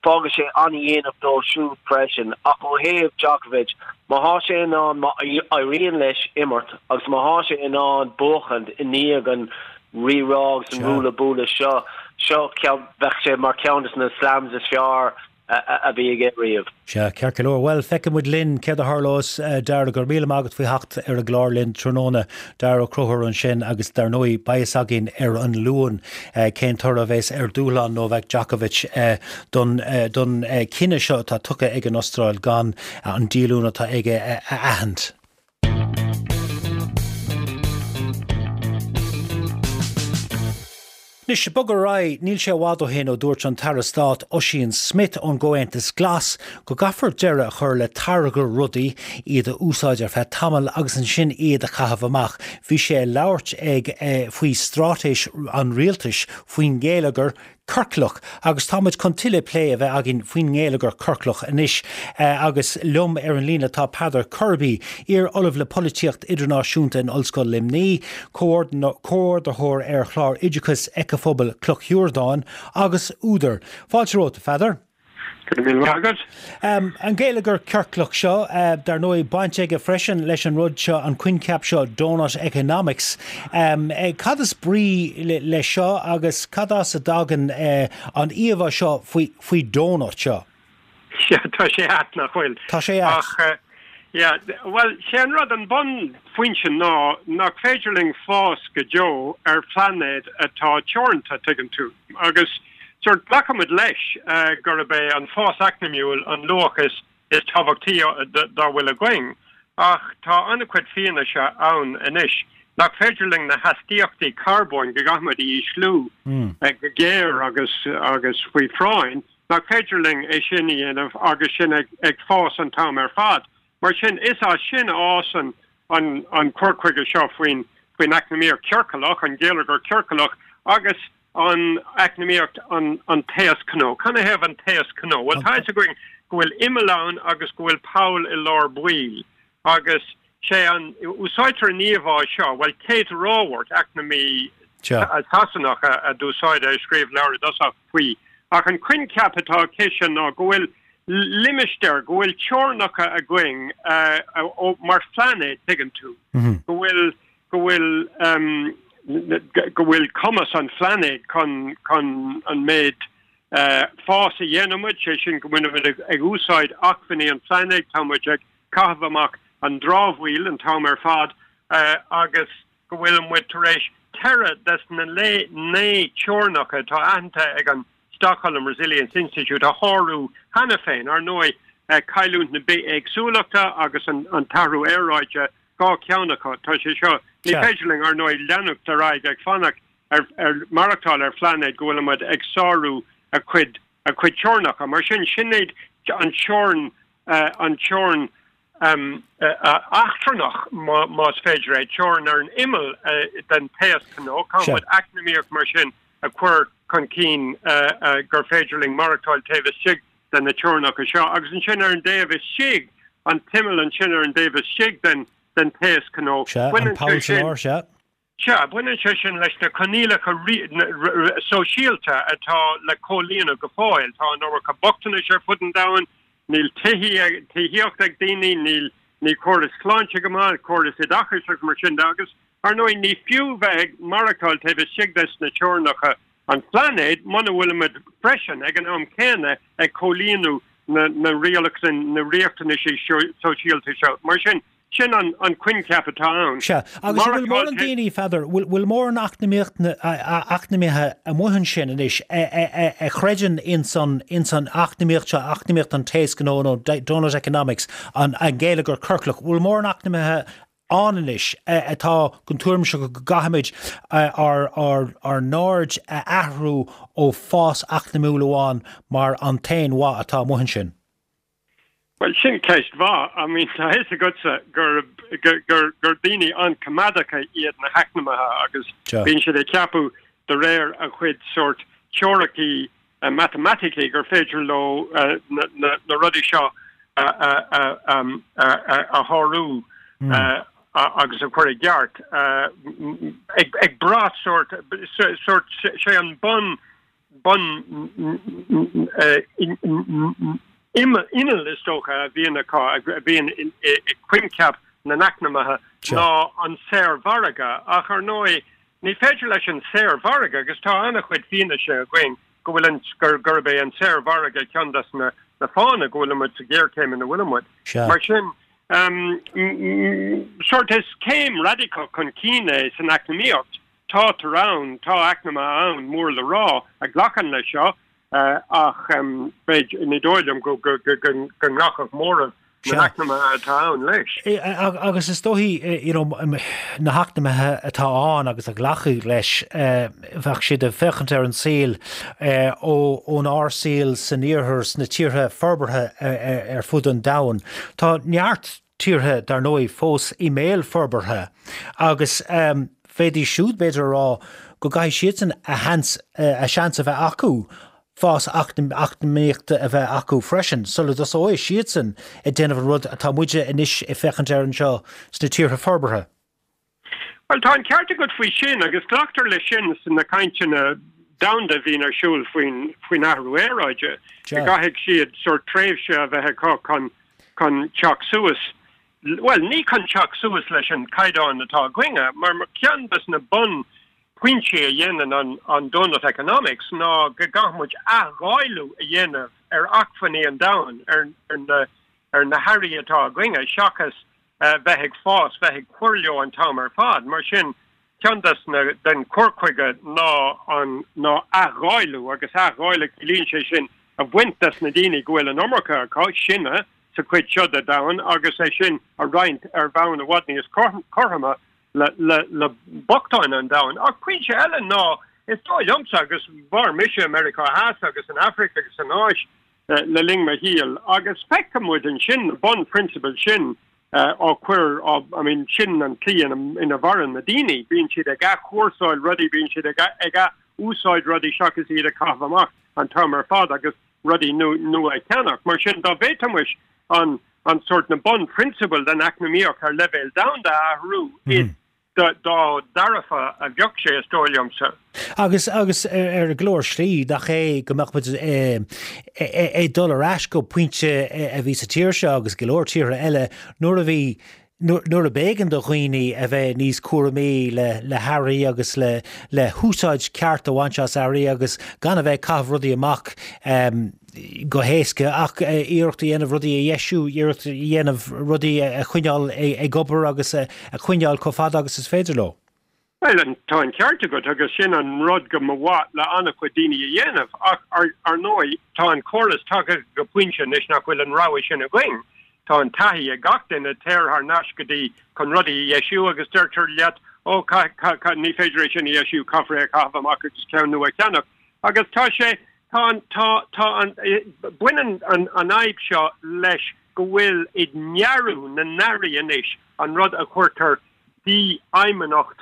Fágfaidh sé an-dhéanach dó siúd freisin. Ach ó thaobh Djokovic, má thá sé in ann, má éiríonn leis imirt agus má thá sé in ann buachaint i ndiaidh an rí-rá agus an ruaille buaille seo, seo, bheadh sé mar cheann de na slams is fearr. a bhí aige riamh. Sea, ceart go leor. Bhuel, feicfidh muid linn céard a tharlós. Dara, go raibh míle maith agat faoi theacht ar an gclár linn tráthnóna. Dara Ó Conchúir ansin agus dar ndóigh beidh fhios againn ar an Luan cén toradh a bheas ar dúshlán Novak Djokovic don don cinneadh seo atá tugtha ag an Astráil gan an díolúine atá aige a aithint. Anois, ag bogadh ar aghaidh, níl sé i bhfad ó shin ó dúirt an tAire Stáit Ossian Smyth ón gComhaontas Glas go gcaithfear deireadh a chur le táirgeadh rudaí, iad a úsáid ar feadh tamaill agus ansin iad a chaitheamh amach. Bhí sé ag labhairt ag faoi straitéis an rialtais faoin ngeilleagar ciorclach agus tá muid chun tuilleadh plé a bheith againn faoin ngeilleagar ciorclach anois agus liom ar an líne tá Peadar Kirby, iar-ollamh le polaitíocht idirnáisiúnta in Ollscoil Luimnigh, comhordaitheoir ar chlár oideachais Éiceaphobal Cloch Shiurdáin agus údar. Fáilte romhat, a Pheadair. Go raibh míle maith agat. An geilleagar ciorclach seo, dar ndóigh, baint aige freisin leis an rud seo, an coincheap seo doughnut economics. Cad is brí leis seo agus cad as a dtagann an íomhá seo faoi donut seo? Sea, tá sé ait, nach bhfuil? Tá sé ait. Ach, yeah, bhuel, sé an rud, an bunphointe ná nach féidir linn fás go deo ar phlainéad atá teoranta, tuigeann tú. Agus sórt glacaimid leis gurb é an fás eacnamaíúil an luach is is tábhachtaí dá bhfuil againn, ach tá an-chuid fianaise ann anois nach féidir linn na hastaíochtaí carbóin, go gcaithfimid a ísliú go géar agus agus faoi phráinn, nach féidir linn é sin a dhéanamh agus sinn ag ag fás an t-am ar fad. Mar sin, is as sin a fhásann an an cur chuige seo faoin faoin eacnamaíocht chiorclach, an geilleagar ciorclach, agus an eacnamaíocht an an taos cnó. Canathaobh an taos cnó? Bhuel, tá fhios againn go bhfuil imeall ann agus go bhfuil poll i lár baill agus sé an, úsáidtear an íomhá seo, bhuel, Kate Raworth, eacnamaí Sasanach a d'úsáid é, a scríobh leabhar i dtosach faoi. Ach an coincheap atá aici ná go bhfuil limistéar, go bhfuil teorainneacha againn mar phlainéad, tuigeann tú, go bhfuil go bhfuil go bhfuil cumas an phlainéid chun chun an méid fás a dhéanann muid, sé sin go bhfuil muid ag úsáid acmhainní an phláinéid, tá muid ag caitheamh amach an dramhaíl an t-am ar fad agus go bhfuil muid tar éis ceithre des na naoi teorainneacha atá aitheanta ag an Stockholm Resilience Institute a shárú cheana féin. Ar ndóigh, cailliúint na bithéagsúlachta agus an t-athrú aeráide 2 cheann acu. Tá sé seo, ní féidir linn, ar ndóigh, leanacht ar aghaidh ag fanacht ar, ar maireachtáil ar phlainéad go bhfuil muid ag sárú a chuid, a chuid teorainneacha. Mar sin, sin iad an teorainn, an teorainn eachtrannach, más féidir é, teorainn ar an imeall den taos cnó. Caithfidh muid eacnamaíocht mar sin a chur chun cinn gur féidir linn maireachtáil taobh istigh de na teorainneacha seo, agus ansin ar an dtaobh istigh, an t-imeall ansin ar an dtaobh istigh den den taos cnó, Sea, an poll sa lár, sea. Sea, baineann sé sin leis na coinníollacha sóisialta atá le comhlíonadh go fóill. Tá an iomarca bochtanais ar fud an domhain, níl tithíocht ag daoine, níl níl córas sláinte go maith, córas oideachais agus mar sin de, agus ar ndóigh ní fiú bheith ag maireachtáil taobh istigh des na teorainneacha an phláinéid muna bhfuilimid freisin ag an am céanna ag comhlíonadh na na na riachtanaisí sóisialta seo. Mar sin, sin an an coincheap atá ann. Sea, agus an bhfuil mórán daoine, a Pheadair, bhfuil bhfuil mórán eacnamaíocht eacnamaithe amuigh ansin anois a chreideann ins an ins an eacnamaíocht seo, eacnamaíocht an taos cnó nó doughnut economics, an an geilleagar ciorclach, bhfuil mórán eacnamaithe ann anois atá den tuairim seo go gcaithfimid ár ár n-aird a athrú ó fás eacnamúil amháin mar an t-aon mhaith atá amuigh ansin? Bhuel, sin ceist mhaith. I mean, tá a fhios agatsa gur gur gur daoine an-choimeádacha iad na heacnamaithe agus bíonn siad ag ceapadh de réir a gcuid sórt teoiricí matamaiticí gur féidir leo na rudaí seo a shárú agus a chur i gceart ag brath sórt sórt sé an bun bun inneall is dócha a bhíonn acu a bhíonn i coincheap na n-eacnamaithe ná an saormhargadh ach ar ndóigh ní féidir leis an saormhargadh agus tá an-chuid fianaise againn. go bhfuil an, gurb é an saormhargadh ceann des na fáthanna go bhfuilimid sa ghéarchéim ina bhfuilimid. Mar sin, sórt is céim radacach chun cinn é san eacnamaíocht. Tátar ann, tá eacnamaithe ann, mór le rá, a ghlacann leis seo, ach b'fhéidir, ní dóigh liom go nglacfadh móramh na n-eacnamaithe atá ann leis. Agus is dóichí, you know, na heacnamaithe atá ann agus a ghlacfaidh leis, bheadh siad ag féachaint ar an saol ónár saol san iarthar, sna tíortha forbartha ar fud an domhain. Tá neart tíortha, dar ndóigh, fós i mbéal forbartha agus bhféadfaidís siúd, b'fhéidir, a rá go gcaithfidh siadsan a sheans, a seans a bheith acu fás eacnamaíochta a bheith acu freisin sula dtosóidh siadsan ag déanamh an rud atá muide anois ag féachaint air anseo sna tíortha forbartha. Bhuel, tá an ceart agat faoi sin agus glactar leis sin sna cainteanna domhanda a bhíonn ar siúl faoin faoin athrú aeráide, go gcaithfidh siad sórt tréimhse a bheith acu chun chun teacht suas, bhuel, ní chun teacht suas leis an caighdeán atá againne, mar ceann des na bun pointí a dhéanann an an doughnut economics ná go gcaithfidh muid athdháileadh a dhéanamh ar acmhainní an domhain, ar na ar na hearraí atá againne, seachas bheith ag fás, bheith ag cur leo an t-am ar fad. Mar sin, ceann des na, den chur chuige ná an, ná athdháileadh, agus athdháileadh, ciallaíonn sé sin a bhaint des na daoine go bhfuil an iomarca acu, sinne, sa chuid seo de domhan, agus é sin a roinnt ar bhonn i bhfad níos cothroime le, le, le bochtáin an domhain. Ach pointe eile ná, is dóigh liomsa, agus mhair mise i Meiriceá Theas agus san Afraic agus san Áis, le linn mo shaoil agus feiceann muid ansin na bunphrionsabail sin á cur, á, I mean, sin an tslí ina, ina mhaireann na daoine, bíonn siad ag athchúrsáil rudaí, bíonn siad ag, ag ath-úsáid rudaí seachas iad a chaitheamh amach an t-am ar fad agus rudaí nua a cheannach. Mar sin, dá bhféadfaimis an, an sórt, na bunphrionsabail den eacnamaíocht ar leibhéal domhanda a athrú, is dá dhearfa a bheadh sé, is dóigh liomsa. Agus, agus ar go leor slí, nach é go mbeadh muid ag dul ar ais go pointe a bhí sa tír seo agus go leor tíortha eile nuair a bhí, nuair a b'éigean do dhaoine a bheith níos cúramaí le, le hearraí agus le, le húsáid ceart a bhaint as earraí agus gan a bheith ag caitheamh rudaí amach. go héasca ach iarracht a dhéanamh rudaí a dheisiú, iarracht a dhéanamh rudaí a choinneáil ag obair agus a choinneáil chomh fada agus is féidir leo. Bhuel, tá an ceart agat agus sin an rud go mba mhaith le an-chuid daoine a dhéanamh ach ar ndóigh tá an córas tagtha go pointe anois nach bhfuil an rogha sin againn. Tá an taithí ag gach duine, téir thar n-ais go dtí chun rudaí a dheisiú agus deirtear leat, ó, ní féidir é sin a dheisiú, caithfear é a chaitheamh amach agus ceann nua a cheannach. Agus tá sé, tá an, tá, tá an, baineann an, an fhadhb seo leis go bhfuil i ndearadh na n-earraí anois an rud a chuirtear dífheidhmeannacht,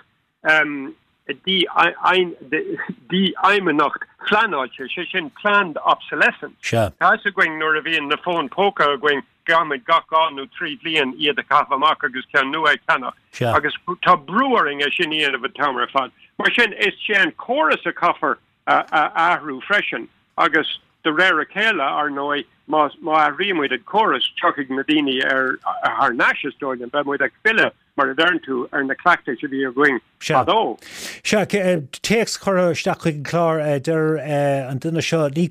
dífheidhmeannacht phleanáilte, sé sin planned obsolescence. Sea. Tá fhios againn nuair a bhíonn na fóin póca againn Caithfimid gach 2 nó 3 bhliain iad a chaitheamh amach agus ceann nua a cheannach. Sea. Agus tá brú orainn é sin a dhéanamh an t-am ar fad. Mar sin, is é an córas a chaithfear a athrú freisin. Agus de réir a chéile, ar ndóigh, má má athraímid an córas, tiocfaidh na daoine ar thar n-ais, is dóigh liom. Beidh muid ag filleadh, mar a deireann tú, ar na cleachtais a bhí againn Sea. fadó. Sea, téacs curtha isteach chuig an chlár, deir an duine seo, ní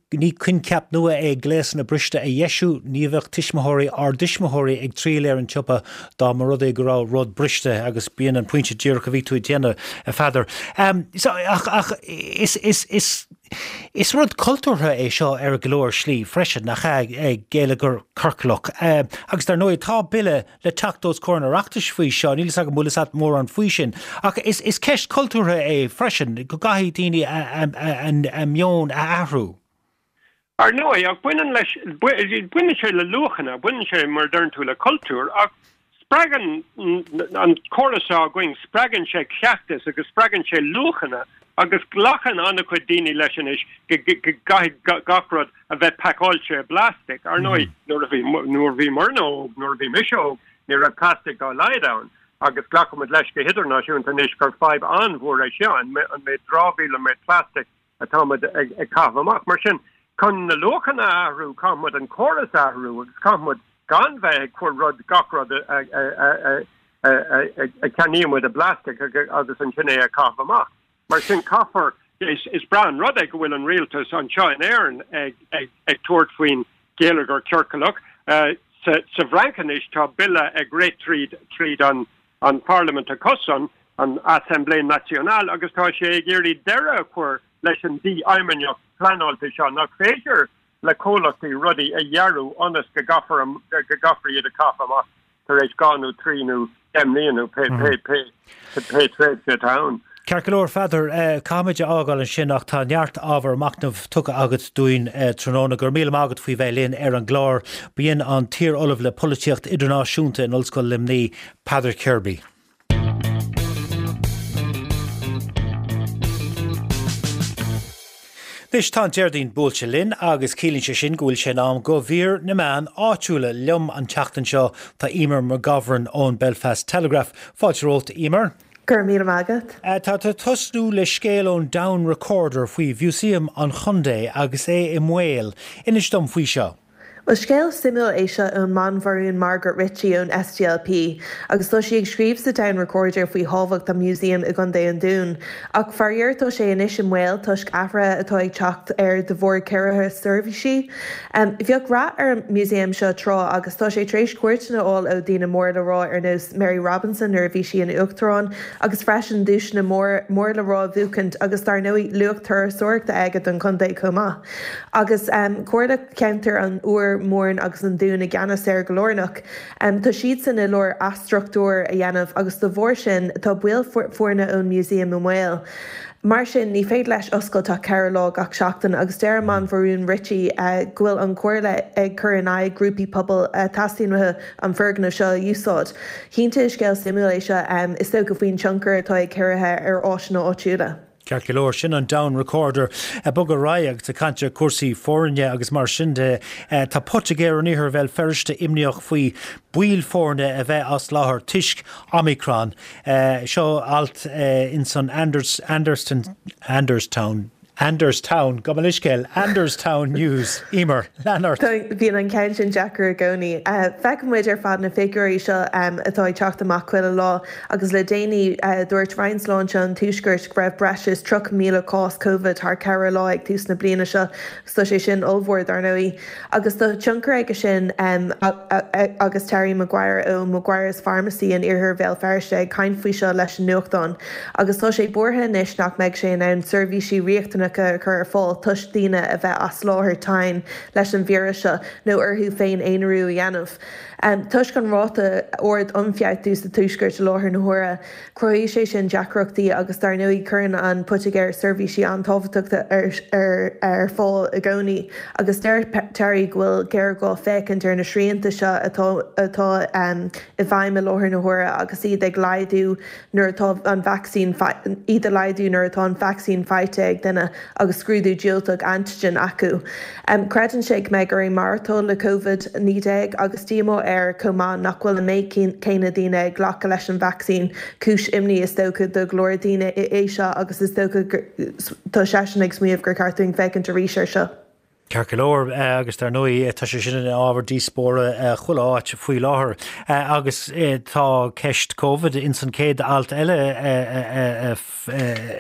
ní coincheap nua é gléasanna briste a dheisiú, ní bheadh tuismitheoirí ár dtuismitheoirí ag triall ar an tsiopa dá mba rud é go raibh rud briste agus b'in an pointe díreach a bhí tú ag déanamh, a Pheadair. So, ach, ach is, is, is, is rud cultúrtha é seo ar go leor slí freisin, nach ea, geilleagar ciorclach. Agus dar ndóigh tá bille le teacht os comhair an Oireachtais faoi seo, níl 'fhios agam an bhfuil 'fhios a't mórán faoi sin. Ach is is ceist cultúrtha é freisin, go gcaithfidh daoine a meon a athrú. Ar ndóigh, ach baineann leis, baineann sé le luachanna, baineann sé, mar a deireann tú, le cultúr, ach spreagann an córas seo againn, spreagann sé cleachtas agus spreagann sé luachanna agus glacann an-chuid daoine leis anois go gcaithfidh gach rud a bheith pacáilte i bplastic. Ar ndóigh, nuair a bhí, nuair a bhíomarna óg, nuair a bhí mise óg, ní raibh plastic dá laghad ann agus glacaimid leis go hidirnáisiúnta anois gur fadhb an-mhór é seo, an méid dramhaíl, an méid plastic atáimid ag caitheamh amach. Mar sin, chun na luachanna a athrú, caithfimid an córas a athrú agus caithfimid gan bheith ag cur rud, gach rud a a ceannaímid i bplastic agus ansin é a chaitheamh amach. Mar sin, caithfear. Is breá an rud é go bhfuil an rialtas anseo in Éirinn ag tabhairt faoin gheilleagar ciorclach. Sa bhFrainc anois tá bille ag rith tríd an pharlaimint acusan, an Assemblée Nationale, agus tá sé ag iarraidh deireadh a chur leis an dífheidhmeannacht pleanáilte seo nach féidir le comhlachtaí rudaí a dhearadh ionas go gcaithfear iad a chaitheamh amach tar éis 2 nó 3 nó 10 mbliana nó pé tréimhse atá ann. Ceart go leor, a Pheadair, caithfimid a fhágáil ansin ach tá neart ábhar machnaimh tugtha agat dúinn tráthnóna. Go raibh míle maith agat faoi bheith linn ar an gclár. B'in an t-iar-ollamh le Polaitíocht Idirnáisiúnta in Ollscoil Luimnigh, Peadar Kirby. Anois tá an Déardaoin buailte linn agus ciallaíonn sé sin go bhfuil sé in am do mhír na meán áitiúla. Liom an tseachtain seo tá Eimear McGovern ón Belfast Telegraph. Fáilte romhat, Eimear. Go raibh míle maith agat. Tá tú ag tosnú le scéal ón Down Recorder faoi Mhúsaem an Chontae agus é i mbaol. Inis dom faoi seo. Bhuel, scéal suimiúil é seo ón mBanbharún Margaret Ritchie ón SDLP agus tá sí ag scríobh sa Down Recorder faoi thábhacht an mhúsaeim i gContae an Dúin. Ach faraor tá sé anois i mbaol toisc athruithe atá ag teacht air de bharr ciorruithe seirbhísí. Bheadh rath ar an músaem seo tráth agus tá sé tar éis cuairteanna a fháil ó daoine mór le rá ar nós Mary Robinson nuair a bhí sí ina Uachtarán agus freisin duaiseanna mór le rá a bhuachaint agus dar ndóigh luach turasóireachta aige don chontae chomh maith. Agus Comhairle Ceantair an Iúir, Mhúrn agus an Dúin i gceannas air go lárnach. Tá siadsan i lár athstruchtúr a dhéanamh agus de bharr sin tá baill foirne ón museum i mbaol. Mar sin ní féidir leis oscailt ach 4 lá gach seachtain agus deir an mBanbharún Ritchie go bhfuil an Chomhairle ag cur in aghaidh grúpaí pobail a theastaíonn uathu an foirgneamh seo a úsáid. Cinnte is scéal suimiúil é seo is dócha faoin tionchar atá ag ciorruithe ar áiseanna áitiúla. Ceart go leor, sin an Down Recorder. Ag bogadh ar aghaidh agus ag caint ar chúrsaí foirne agus mar sin de, tá poitigéir in iarthar Bhéal Feirste imníoch faoi baill foirne a bheith as láthair toisc Omicron. Seo alt ins an Anderstown, Anderstown, gabh mo leithscéal, Anderstown News. Emer, lean ort. Bíonn an ceann sin deacair i gcónaí. Feiceann muid ar fad na figiúirí seo atá ag teacht amach chuile lá Agus le déanaí, dúirt Roinn Sláinte an Tuaiscirt go raibh breis is 30,000 cás Covid thar 4 lá ag tús na bliana seo, agus tá sé sin ollmhór, dar ndóigh. Agus tá tionchar aige sin agus Terry Maguire ó Maguire's Pharmacy in iarthar Bhéal Feirste ag caint faoi seo leis an nuachtán. Agus tá sé buartha anois nach mbeidh sé in ann seirbhísí riachtanacha a chur ar fáil toisc daoine a bheith as láthair tinn leis an víreas seo nó orthu féin aonarú a dhéanamh. Toisc an ráta ard ionfhabhtú sa Tuaisceart i láthair na huaire, cruthaíonn sé sin deacrachtaí agus dar ndóigh cuireann an poitigéir seirbhísí an-tábhachtacha ar fáil i gcónaí agus deir Terry go bhfuil géarghá féachaint ar na srianta seo atá atá i bhfeidhm i láthair na huaire agus iad ag laghdú nuair atá an vacsaín iad a laghdú nuair atá an vacsaín faighte ag duine agus scrúdú diúltach antigen acu. Creideann sé go mbeidh orainn maireachtáil le Covid-19 agus díomá air chomh maith nach bhfuil an méid céanna daoine ag glacadh leis an vacsaín. Cúis imní is dócha do go leor daoine é seo agus is dócha tá seisean ag smaoineamh gur cheart dúinn féachaint arís air seo. Ceart go leor, agus dar ndóigh tá sé sin ina ábhar díospóra chuile áit faoi láthair. Agus tá ceist Covid ins an chéad alt eile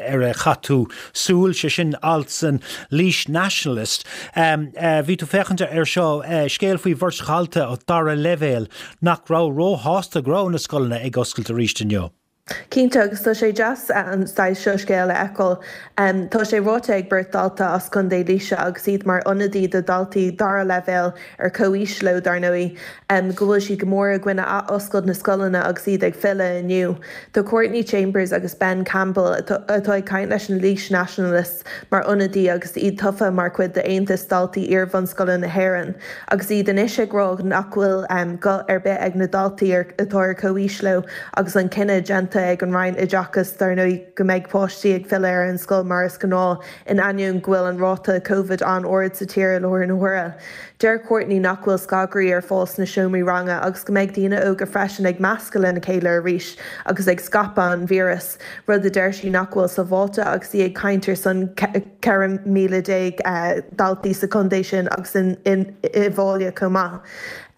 ar a chaith tú súil, sé sin alt san Laois Nationalist. Bhí tú féachaint air seo, scéal faoi bheirt dhalta dara leibhéal nach raibh róshásta go raibh na scoileanna ag oscailt arís inniu. Cinnte, agus tá sé deas an saghas seo scéal a fheiceáil. Tá sé ráite ag beirt dalta as Contae Laoise agus iad mar ionadaí do dhaltaí dara leibhéal ar comhaois leo, dar ndóigh, go bhfuil siad go mór i gcoinne athoscailt na scoileanna agus iad ag filleadh inniu. Tá Courtney Chambers agus Ben Campbell, atá ag caint leis an Laois Nationalist, mar ionadaí agus iad tofa mar chuid d'Aontas Daltaí Iar-bhunscoile na hÉireann agus iad anois ag rá nach bhfuil guth ar bith ag na daltaí atá ar comhaois leo agus an cinneadh déanta ag an Roinn Oideachais dar ndóigh go mbeidh páistí ag filleadh ar an scoil mar is gnáth in ainneoin go bhfuil an ráta Covid an-ard sa tír i láthair na huaire. Deir Courtney nach bhfuil scagairí ar fáil sna seomraí ranga agus go mbeidh daoine óga freisin ag meascadh lena chéile arís agus ag scaipeadh an víreas. rud a deir sí nach bhfuil sábháilte agus í ag caint ar son. 14,000 daltaí sa chontae sin agus i bhFáile chomh maith.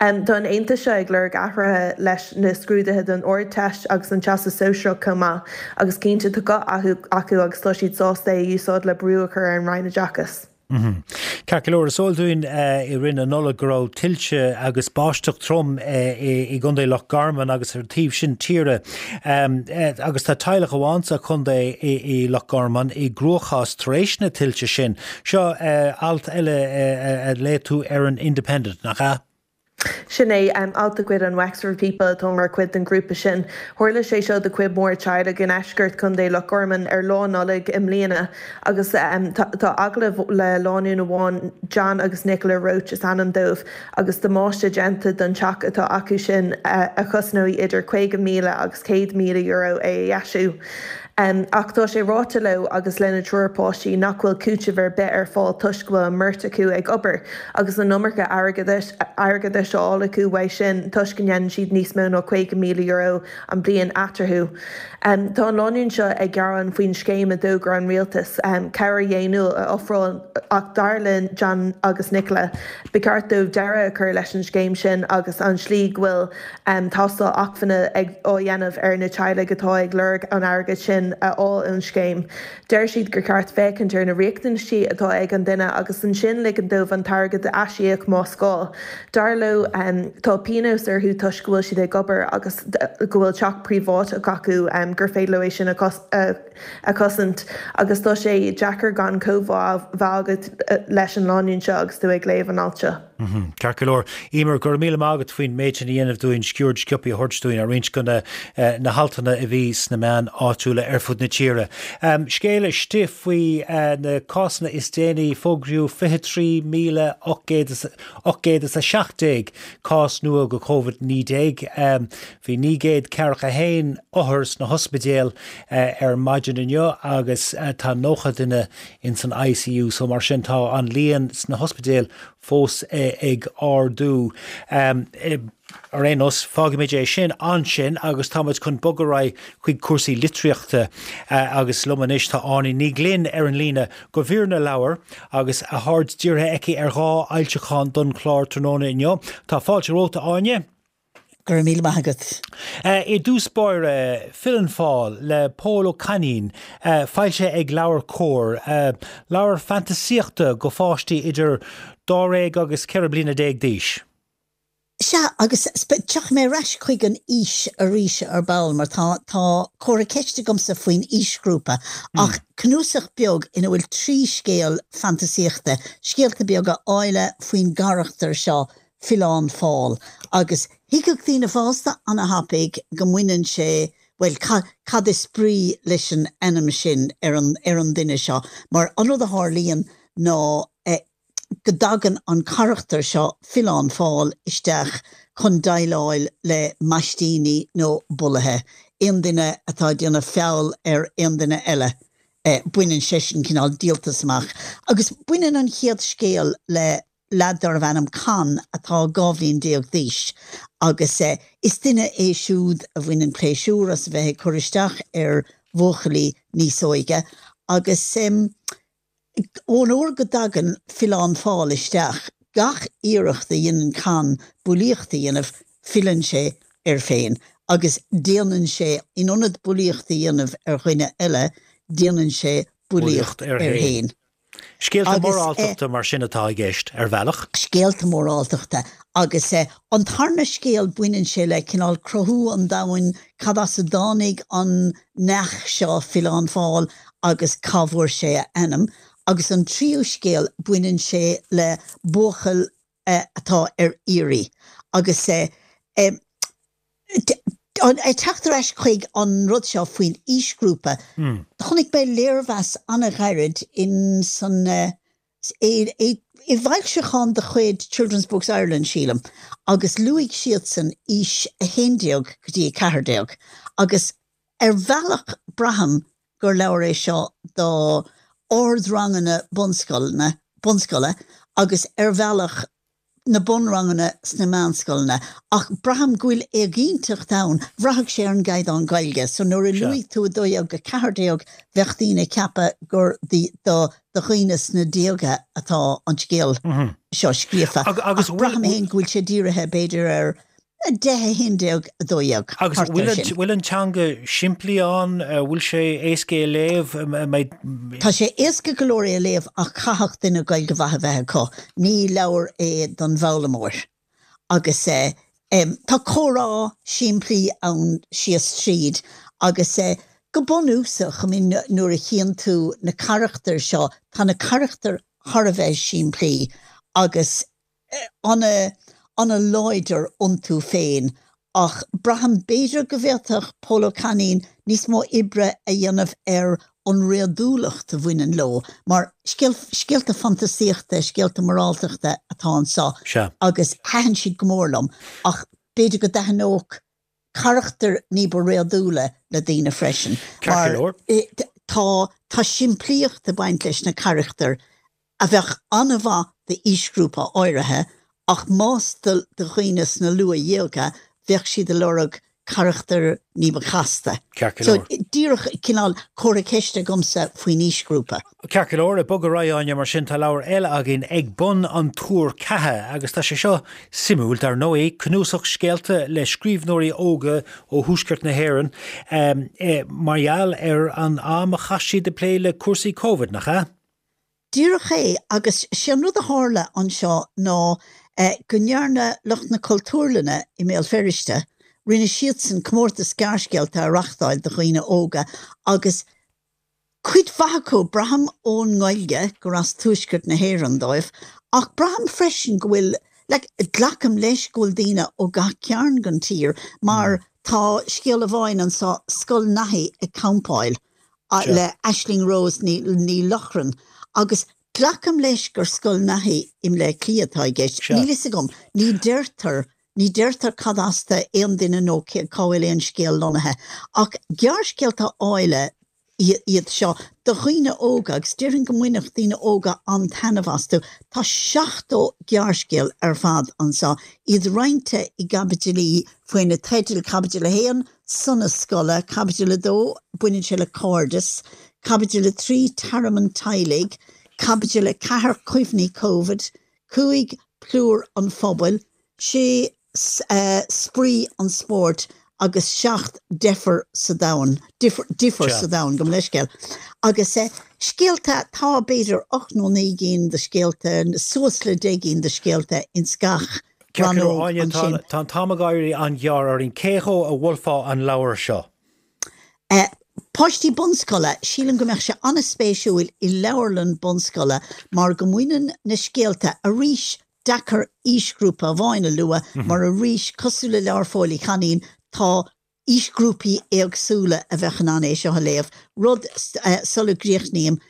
Tá an aontas seo ag lorg athruithe leis na scrúduithe don Ardteist agus an Teastas Sóisearach chomh maith agus cinnte tá guth acu agus tá siad sásta é a úsáid le brú a chur ar an Roinn Oideachais. Ceart go leor, is eol dúinn i rith na Nollag go raibh tuilte agus báisteach trom i gContae Loch Garman agus ar an taobh sin tíre agus tá teaghlach amháin sa chontae i Loch Garman i gcruachás tar éis na tuilte sin. Seo alt eile a léigh tú ar an Independent, nach ea? Sin é, alt de chuid an Wexford People atá mar chuid den ghrúpa sin. Tharla sé seo do chuid mhór teaghlaigh i ndeisceart Chontae Loch Garman ar Lá Nollag i mbliana agus tá agallamh le lánúin amháin, John agus Nicola Roche is ainm dóibh, agus damáiste déanta don teach atá acu sin a chosnóidh idir €50,000 agus €100,000 é a dheisiú. Ach tá sé ráite leo agus lena dtriúr páistí nach bhfuil cúiteamh ar bith ar fáil toisc go bhfuil an mbeirt acu ag obair agus an iomarca airgeadais á fháil acu uaidh sin toisc go ndéanann siad níos mó ná €50,000 an bliain eatarthu. Tá an lánúin seo ag gearán faoin scéim a d'fhógair an rialtas, cabhair dhaonnúil a ofráil ach dar le John agus Nicola, ba cheart dóibh deireadh a chur leis an scéim sin agus an slí go bhfuil tástáil acmhainne á dhéanamh ar na teaghlaigh atá ag lorg an airgid sin a fháil ón scéim. Deir siad gur cheart féachaint ar na riachtanaisí atá ag an duine agus ansin ligean dóibh an t-airgead a aisíoc más gá. Dar leo, tá pionós orthu toisc go bhfuil siad ag obair agus go bhfuil teach príobháideach acu gur féidir leo é sin a a chosaint agus tá sé deacair gan comhbhá a bheith agat leis an lánúin seo agus tú ag léamh an ailt seo. Ceart go leor. Emer, go raibh míle maith agat faoin méid sin a dhéanamh dúinn, sciuird sciobtha a thabhairt dúinn ar roinnt de na haltanna a bhí sna meáin áitiúla ar fud na tíre. Scéal istigh faoi na cásanna is déanaí, fógraíodh 23,817 cás nua de Covid-19. Bhí 941 othar sna hospidéil ar maidin inniu agus tá 90 duine ins an ICU so mar sin tá an líon sna hospidéil fós ag ardú. Ar aon nós, fágfaimid é sin ansin agus táimid chun bogadh ar aghaidh chuig cúrsaí litríochta agus liom anois tá Áine Ní Ghlinn ar an líne go mhír na leabhar agus a haird dírithe aici ar dhá fhoilseachán don chlár tráthnóna inniu. Tá fáilte romhat, a Áine. Go raibh míle maith agat. I dtús báire, Filleann Fál le Pól Ó Cainín, foilsithe ag LeabhairCOMHAR. Leabhar fantasaíochta go pháistí idir dáréag agus 14 bliana d'aois. Sea, agus tiocfaidh mé ar ais chuig an aois arís ar ball mar tá tá comhartha ceiste agamsa faoin aoisghrúpa ach cnuasach beag ina bhfuil 3 scéal fantasaíochta, scéalta beaga áille faoin gcarachtar seo Filleán Fál, agus thuigfeadh daoine fásta ana-thapaidh go mbaineann sé, bhuel, cad is brí leis an ainm sin ar an, ar an duine seo, mar an rud a tharlaíonn ná go dtagann an carachtar seo, Filleán Fál, isteach chun déileáil le maistíní nó bulaithe, aon duine atá ag déanamh feall ar aon duine eile, baineann seisean cineál díoltas amach. Agus baineann an chéad scéal le leaid darbh ainm Con atá 12 bhliain d'aois agus is duine é siúd a bhaineann pléisiúr as a bheith ag cur isteach ar bhuachaillí níos óige agus ón uair go dtagann Filleán Fál isteach, gach iarracht a dhéanann Con bulaíocht a dhéanamh, filleann sé air féin agus déanann sé, in ionad bulaíocht a dhéanamh ar dhuine eile, déanann sé bulaíocht air féin. Scéalta móráltachta mar sin atá i gceist, ar bhealach. Scéalta móráltachta. Agus an tarna scéal, baineann sé le cineál cruthú an domhain, cad as a dtáinig an neach seo, Filleán Fál, agus cá bhfuair sé a ainm. Agus an tríú scéal, baineann sé le buachaill atá ar iarraidh. Agus ag teacht ar ais chuig an rud seo faoin aoisghrúpa, chonaic mé léirmheas an-ghairid in san i bhfoilseachán de chuid Children's Books Ireland, sílim, agus luaigh siadsan aois 11 go dtí 14 agus ar bhealach braithim gur leabhar é seo do ardranganna bunscoileanna, bunscoile agus ar bhealach. na bunranganna sna meánscoileanna ach braithim go bhfuil éiginnteacht ann, bhraithfeadh sé ar an gcaighdeán Gaeilge so nuair a luaigh tú 12-14 bheadh daoine ag ceapadh gur do do dhaoine sna déaga atá an scéal seo scríofa ach braithim féin go bhfuil sé dírithe b'fhéidir ar 10, 11, 12, Agus thart air sin. bhfuil an teanga simplí ann? Bhfuil sé éasca é a léamh? Tá sé éasca go leor é a léamh ach caithfidh duine Gaeilge mhaith a bheith acu. Ní leabhar é don bhfoghlaimeoir. Agus tá comhrá simplí ann síos tríd agus go bunúsach, I mean nuair a chíonn tú na carachtair seo, tá na carachtair thar a bheith simplí agus ana-láidir iontu féin ach braithim b'fhéidir go bhféadfadh Pól Ó Cainín níos mó oibre a dhéanamh ar an réadúlacht a bhaineann leo mar scéalta fantasaíochta, scéalta moráltachta atá anseo agus thaitin siad go mór liom ach b'fhéidir go dtaitneodh carachtair ní ba réadúla le daoine freisin mar tá tá simplíocht ag baint leis na carachtair a bheadh an-mhaith d'aoisghrúpa áirithe ach más do dhaoine sna luathdhéaga bheadh siad ag lorg carachtair ní ba chasta. Ceart go leor. So díreach cineál comhartha ceiste agamsa faoin aoisghrúpa. Ceart go leor, ag bogadh ar aghaidh Áine, mar sin tá leabhar eile againn Ag Bun an Túir Ceatha agus tá sé seo suimiúil dar ndóigh, cnuasach scéalta le scríbhneoirí óga ó thuaisceart na hÉireann mar gheall ar an am a chaith siad ag plé le cúrsaí Covid, nach ea? Díreach é, agus sé an rud a tharla anseo ná go ndearna lucht na Cultúrlainne i mBéal Feirste, rinne siadsan comórtas gearrscéalta a reachtáil do dhaoine óga agus cuid mhaith acu, braithim ón nGaeilge gur as tuaisceart na hÉireann dóibh, ach braithim freisin go bhfuil, like, glacaim leis go bhfuil daoine ó gach cearn den tír mar tá scéal amháin anseo, Scoil Naithí ag Campáil. le Aisling Rose Ní Lochrainn agus glacaim leis gur Scoil Naithí i mBleá Cliath atá i gceist. Níl fhios agam. Ní deirtear, ní deirtear cad as do aon duine nó cá bhfuil aon scéal lonnaithe. Ach gearrscéalta áille iad seo do dhaoine óga agus déarfainn go mbainfeadh daoine óga an-taitneamh astu. Tá 70 gearrscéal ar fad anseo, iad roinnte i gcaibidilí faoi na teidil Caibidil 1, Sonas scoile, Caibidil 2, baineann sé le cairdeas, Caibidil 3, Tearmann teaghlaigh, Caibidil 4, Cuimhní Covid, 5, Plúr an phobail, 6, Spraoi an spóirt agus 7, Deifir sa domhan, Difear sa domhan, gabh mo leithscéal. Agus scéalta, tá b'fhéidir 8 nó 9 gcinn de scéalta, suas le 10 gcinn de scéalta ins gach Ceart go leor, Áine, tá tá an t-am ag éirí an-ghearr orainn. Cé dhó a mholfá an leabhar seo? Páistí bunscoile, sílim go mbeadh sé an-spéisiúil i leabharlann bunscoile mar go mbaineann na scéalta, arís, deacair aoisghrúpa amháin a lua mar arís, cosúil le leabhar Phóil Uí Chainín, tá aoisghrúpaí éagsúla a bheadh in ann é seo a léamh. Rud, sula gcríochnaím,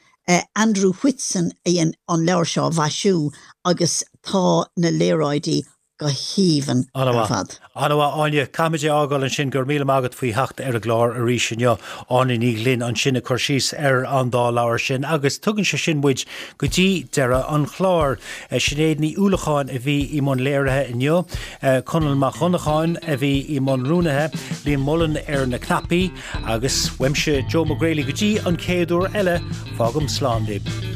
Andrew Whitson a dhein an leabhar seo a mhaisiú agus tá na léaráidí go haoibhinn ar fad. An-mhaith, Áine. Caithfimid é a fhágáil ansin. Go raibh míle maith agat faoi theacht ar an gclár arís inniu. Áine Ní Ghlinn ansin ag cur síos ar an dá leabhar sin agus tugann sé sin muid go dtí deireadh an chláir. Sinéad Ní Uallacháin a bhí i mbun léirithe inniu. Conall Mac Dhonnacháin a bhí i mbun rúnaithe, Liam Mullen ar na cnaipí agus uaimse Joe Mac Grailí go dtí an chéad uair eile, fágaim slán libh.